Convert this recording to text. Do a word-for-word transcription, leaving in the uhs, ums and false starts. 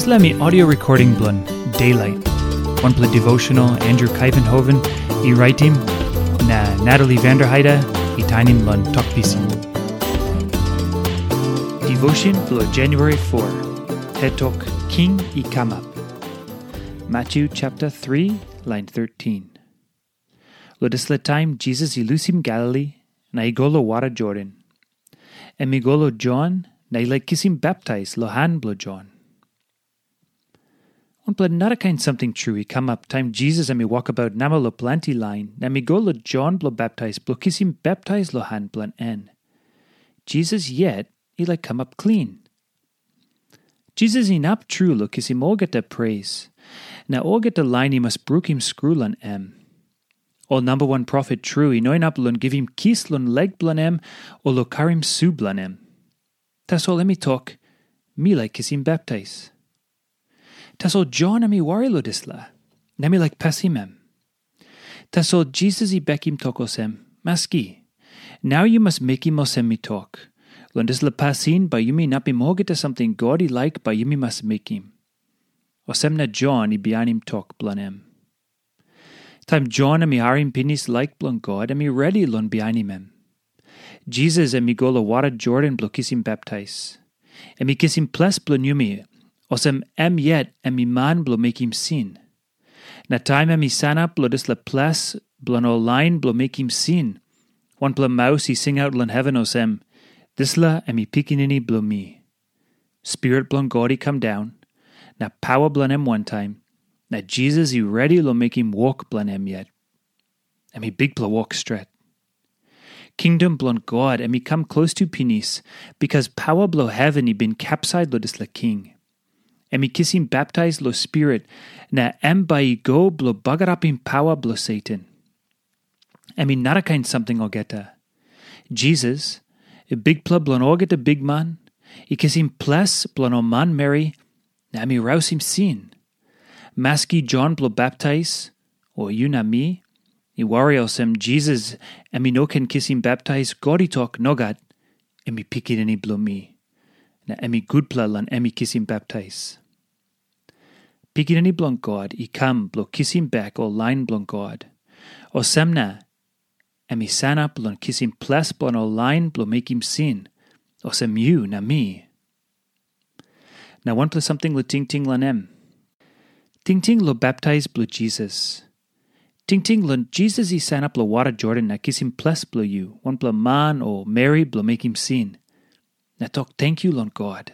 Dispela mi audio recording bilong Daylight, wanpela devotional Andrew Kaivenhoven i raitim, na Natalie Vanderheide i tainim long tok pisin. Devotion bilong January four, het tok King i kamap. Matthew chapter three, line thirteen. Long dispela taim Jisas i lusim Galili na i go long wara Jordan. Em i go long Jon na i laik kisim baptais long han bilong Jon. Wanpela narakain samting tru i kamap taim Jisas em i wokabaut namel long planti lain, na em i go long Jon bilong baptais bilong kisim baptais long han bilong en. Jisas yet i laik kamap klin. Jisas inap tru long kisim olgeta pres, na olgeta lain i mas brukim skru long em. Ol namba wan profet tru i no inap long givim kis long lek bilong em o long karim su bilong em. Tasol em i tok, "Mi laik kisim baptais." Tasol Jon em i wari long dispela, na em i laik pasim em. Tasol Jisas i bekim tok olsem, "Maski, nau yu mas mekim olsem mi tok. Long dispela pasin bai yumi inapim olgeta samting God i laik bai yumi mas mekim." Olsem na Jon i bihainim tok bilong em. Taim Jon em i harim pinis laik bilong God, em i redi long bihainim em. Jisas em i go long wara Jordan bilong kisim baptais. Em i kisim ples bilong yumi, olsem em yet em i man bilong mekim sin. Na taim em i sanap long dispela ples bilong ol lain bilong mekim sin, wanpela maus i singaut long heven olsem, "Dispela em i Pikinini bilong mi." Spirit bilong God i kam daun, na paua bilong em wantaim, na Jisas i redi long mekim wok bilong em yet. Em i bikpela wok stret. Kingdom bilong God em i kam klostu pinis, bikas paua bilong heven i bin kapsait long dispela king. Em i kisim baptais long Spirit, na em bai i go bilong bagarapim paua bilong Satan. Em i narakain samting olgeta. Jisas, Bikpela bilong olgeta bikman, i kisim ples bilong ol manmeri, na em i rausim sin. Maski Jon bilong baptais, o yu na mi, i wari olsem Jisas em i no ken kisim baptais, God i tok, "Nogat, em i Pikinini bilong mi, na em i gutpela long em i kisim baptais." Pikinini bilong God i kam bilong kisim bek ol lain bilong God. Olsem na, em i sanap long kisim ples bilong ol lain bilong mekim sin, olsem yu na mi. Na wanpela samting long tingting long em. Tingting long baptais bilong Jisas. Tingting long Jisas i sanap long wara Jordan na kisim ples bilong yu, wanpela man o meri bilong mekim sin, na tok tenkyu long God.